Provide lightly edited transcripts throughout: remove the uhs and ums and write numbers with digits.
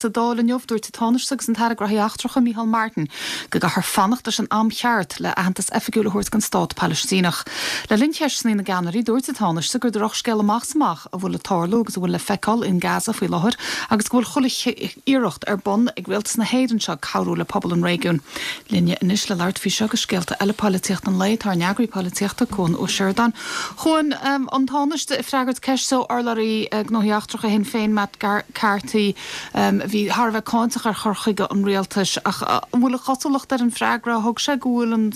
Sa Dáil inniu, dúirt an Tánaiste agus an tAire Gnóthaí Eachtracha, Micheál Martin, go gcaithfear fanacht leis an am cheart le aitheantas oifigiúil a thabhairt don stát Palaistíneach. Le linn cheisteanna na gceannairí, dúirt an Tánaiste gur drochscéal amach is amach a bhfuil ag tarlú agus a bhfuil le feiceáil in Gaza faoi láthair agus go bhfuil chuile iarracht ar bun ag rialtas na hÉireann seo cabhrú le pobal an réigiúin. Linne anois le labhairt faoi seo agus scéalta eile poilitíochta an lae tá ár n-eagraí polaitíochta, Cuan Ó Seireadáin. Chuan, an Tánaiste ag freagairt ceiste ó urlabhraí Gnóthaí Eachtracha Shinn Féin, Matt Carthy, a bhí thar a bheith cáinteach ar chur chuige an rialtais. Ach an bhfuil an chosúlacht ar an bhfreagra a thug sé go bhfuil an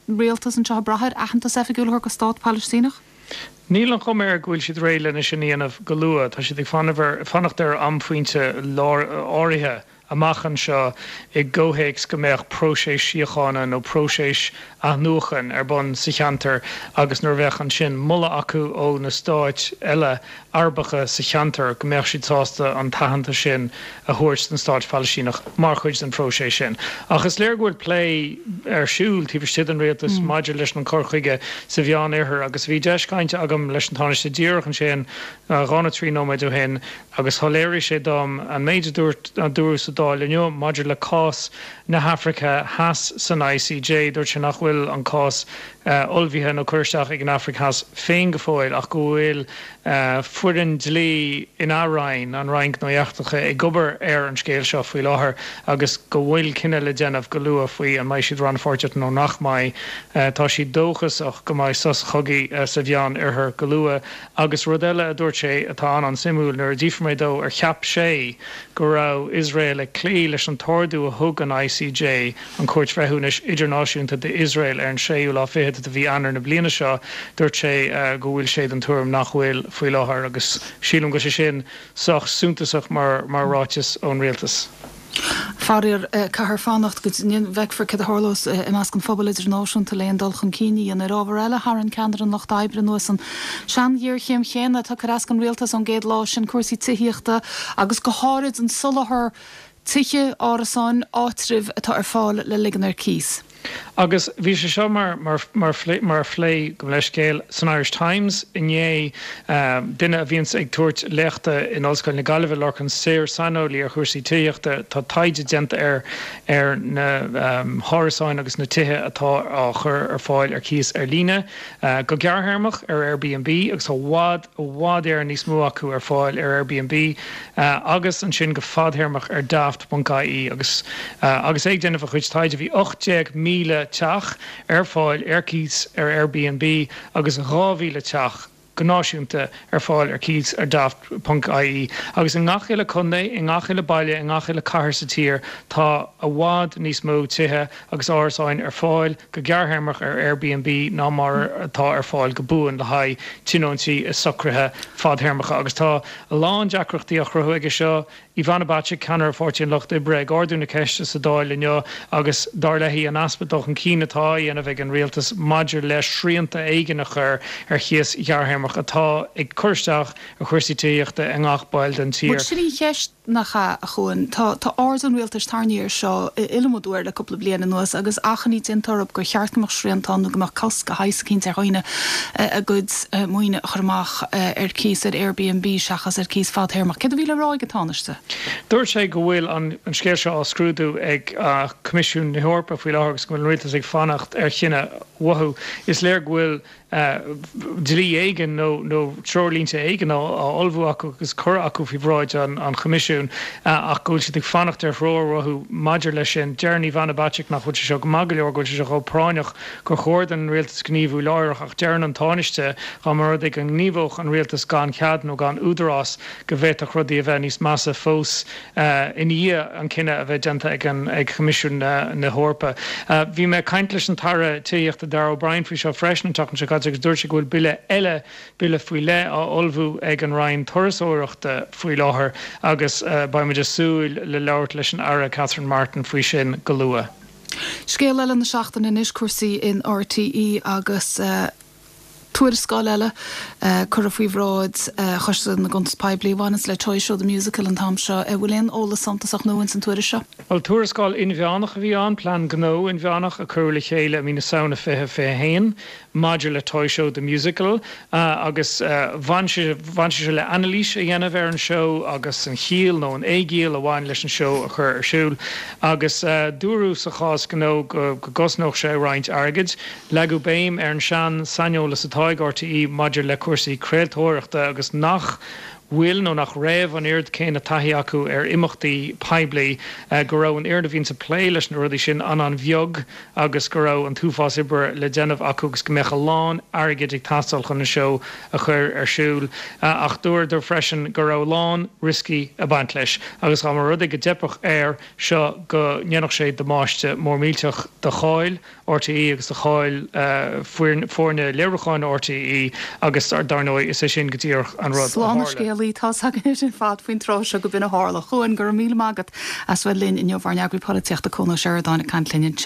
rialtas anseo ag brath ar aitheantas oifigiúil a thabhairt do stát Palaistíneach? Níl an chuma air go bhfuil siad réidh lena sin a dhéanamh go luath. Tá siad ag fanacht ar amphointe áirithe. amach anseo i gcomhthéacs go mbeadh próiseas síochána nó próiseas athnuachan ar bun sa cheantar agus nuair a bheadh ansin moladh acu ó na stáit eile Arabacha sa cheantar go mbeadh siad sásta an t-aitheantas sin a thabhairt don stáit Phalaistíneach mar chuid den phróiseas sin. Ach is léir go bhfuil plé ar siúl taobh istigh den rialtas maidir leis an cur chuige sa Mheán-Oirthear agus bhí deis cainte agam leis an Tánaiste díreach ansin 2 nó 3 nóiméad ó shin Agus shoiléirigh sé dom an méid a dúirt, a dúradh sa Dáil inniu maidir le cás na hAfraice Theas san ICJ. Dúirt sé nach bhfuil an cás ullmhaithe nó curtha isteach ag an Afraic Theas féin go fóill ach go bhfuil foireann dlí ina Roinn, an Roinn Gnóthaí Eachtracha, ag obair ar an scéal seo faoi láthair agus go bhfuil cinneadh le déanamh go luath faoi an mbeidh siad rannpháirteach nó nach mbeidh. Tá siad dóchasach go mbeidh sos chogaidh sa Mheán Oirthear go luath. Agus rud eile a dúirt sé atá an-an-suimiúil, nuair a d'fhiafraigh mé dó ar cheap sé go raibh Iosrael ag cloí leis an t-ordú a thug an ICJ, an Chúirt Bhreithiúnais Idirnáisiúnta, d'Iosrael ar an séú lá fichead de mhí Eanáir na bliana seo, dúirt sé go bhfuil sé den tuairim nach bhfuil faoi láthair. Agus sílim go bhfuil sé sin sách suntasach mar ráiteas ón rialtas. Faraor, caithfear fanacht go bhfeicfear céard a tharlós i measc an phobail idirnáisiúnta le aon dul chun cinn a dhéanamh. Ar ábhar eile, tharraing ceannaire an Lucht Oibre anuas an sean-ghéarchéim chéanna atá ag cur as don rialtas ón gcéad lá, sin cúrsaí tithíochta agus go háirid an soláthar tithe, árasáin, áitribh atá ar fáil le ligean ar cíos. Agus bhí sé seo mar mar mar phlé, gabh mo leithscéal, san Irish Times inné, duine a bhíonns ag tabhairt léachta in Ollscoil na Gaillimhe, Lorcan Sirr, saineolaí ar chúrsaí tithíochta, tá taighde déanta air ar na hárasáin agus na tithe atá á chur ar fáil ar cíos ar líne go gearrthéarmach ar Airbnb agus tá i bhfad, i bhfad Éireann níos mó acu ar fáil ar Airbnb agus ansin go fadthéarmach ar Daft ponc ie agus agus é ag déanamh a chuid taighde bhí 18,000 teach ar fáil ar cíos ar Airbnb agus 2,000 teach go náisiúnta ar fáil ar cíos ar Daft ponc ie agus i ngach uile contae, i ngach uile baile, i ngach uile cathair sa tír tá i bhfad níos mó tithe agus árasáin ar fáil go gearrthéarmach ar Airbnb ná mar atá ar fáil go buan le haghaidh tionóntaí i socruithe fadthéarmacha agus tá a lán deacrachtaí á chruthú aige seo. Ivana Bacik, ceannaire Pháirtí an Lucht Oibre, ag ardú na ceiste sa Dáil inniu agus, dar léi, an easpa dul chun cinn atá á dhéanamh ag an rialtas maidir le srianta éigin a chur ar chíos ghearrthéarmach atá ag cur isteach ar chúrsaí tithíochta i ngach baill den tír. Bhuel, sin í an cheist. Nach ea, a Chuain? Tá, tá aird an rialtais tarraingthe air seo iliomad uair le cúpla bliain anuas agus achainí déanta orthu gur cheart go mbeadh srianta ann nó go mbeadh cosc de shaghas eicínt ar dhaoine a gcuid maoine a chur amach ar cíos ar Airbnb seachas ar cíos fadthéarmach. Céard a bhí le rá ag an Tánaiste? Dúirt sé go bhfuil an scéal seo á scrúdú ag Coimisiún na hEorpa faoi láthair agus go bhfuil an rialtas ag fanacht ar chinneadh uathu. Is léir go bhfuil dlí éigin nó treoirlínte éigin á ullmhú acu agus curtha acu faoi bhráid an Choimisiúin ach go bhfuil siad ag fanacht ar threoir uathu maidir leis sin. Deireann Ivana Bacik nach bhfuil sé seo go maith go leor, go bhfuil sé seo chomh práinneach gur chóir don rialtas gníomhú láithreach ach deireann an Tánaiste dá mba rud é go ngníomhódh an rialtas gan chead nó gan údarás go bhféadfadh rudaí a bheith níos measa fós. i ndiaidh an cinneadh a bheith déanta ag Coimisiún na hEorpa. Bhí mé ag caint leis an tAire Tithíochta Darragh O'Brien faoi seo freisin an tseachtain seo caite agus dúirt sé go bhfuil bille eile, bille faoi leith, á ullmhú ag an Roinn Turasóireachta faoi láthair agus beidh muid ag súil le labhairt leis an Aire Catherine Martin faoi sin go luath. Scéal eile na seachtaine anois, cúrsaí in RTÉ agus. Tuarascáil eile curtha faoi bhráid Choiste na gCuntas Poiblí a bhaineanns le Toy Show The Musical an t-am seo. An bhfuil aon eolas suntasach nua ins an tuairisc seo? Bhuel, tuarascáil inmheánach a bhí ann, plean gnó inmheánach a cuireadh le chéile i mí na Samhna 2021 maidir le Toy Show The Musical agus bhain sé bhain sé seo le anailís a dhéanamh ar an seó agus an chiall nó an éigiall a bhain leis an seó a chur ar siúl agus dúradh sa chás gnó go gcosnódh sé roinnt airgid. Leagadh béim ar an sean-saineolas atá ag RTÉ maidir le cúrsaí craoltóireachta agus nach bhfuil nó nach raibh an oiread céanna taithí acu ar imeachtaí poiblí, go raibh an fhoireann a bhíonns ag plé leis na rudaí sin an-an-bheag agus go raibh an t-uafás oibre le déanamh acu agus go mbeadh a lán airgid ag teastáil chun an seó a chur ar siúl. Ach dúradar freisin go raibh a lán rioscaí ag baint leis agus dá mba rud é go dteipfeadh air seo go ndéanfadh sé damáiste mór millteach do cháil RTÉ agus do cháil foirne léiriúcháin RTÉ agus dar ndóigh is é sin go díreach an rud a Slán na tharla. scéalaí, tá's againn ar fad faoin tráth seo go b'in a tharla. A Chuain, go raibh míle maith agat as bheith linn inniu, ár n-eagraí polaitíochta Cuan Ó Seireadáin ag caint linn ansin.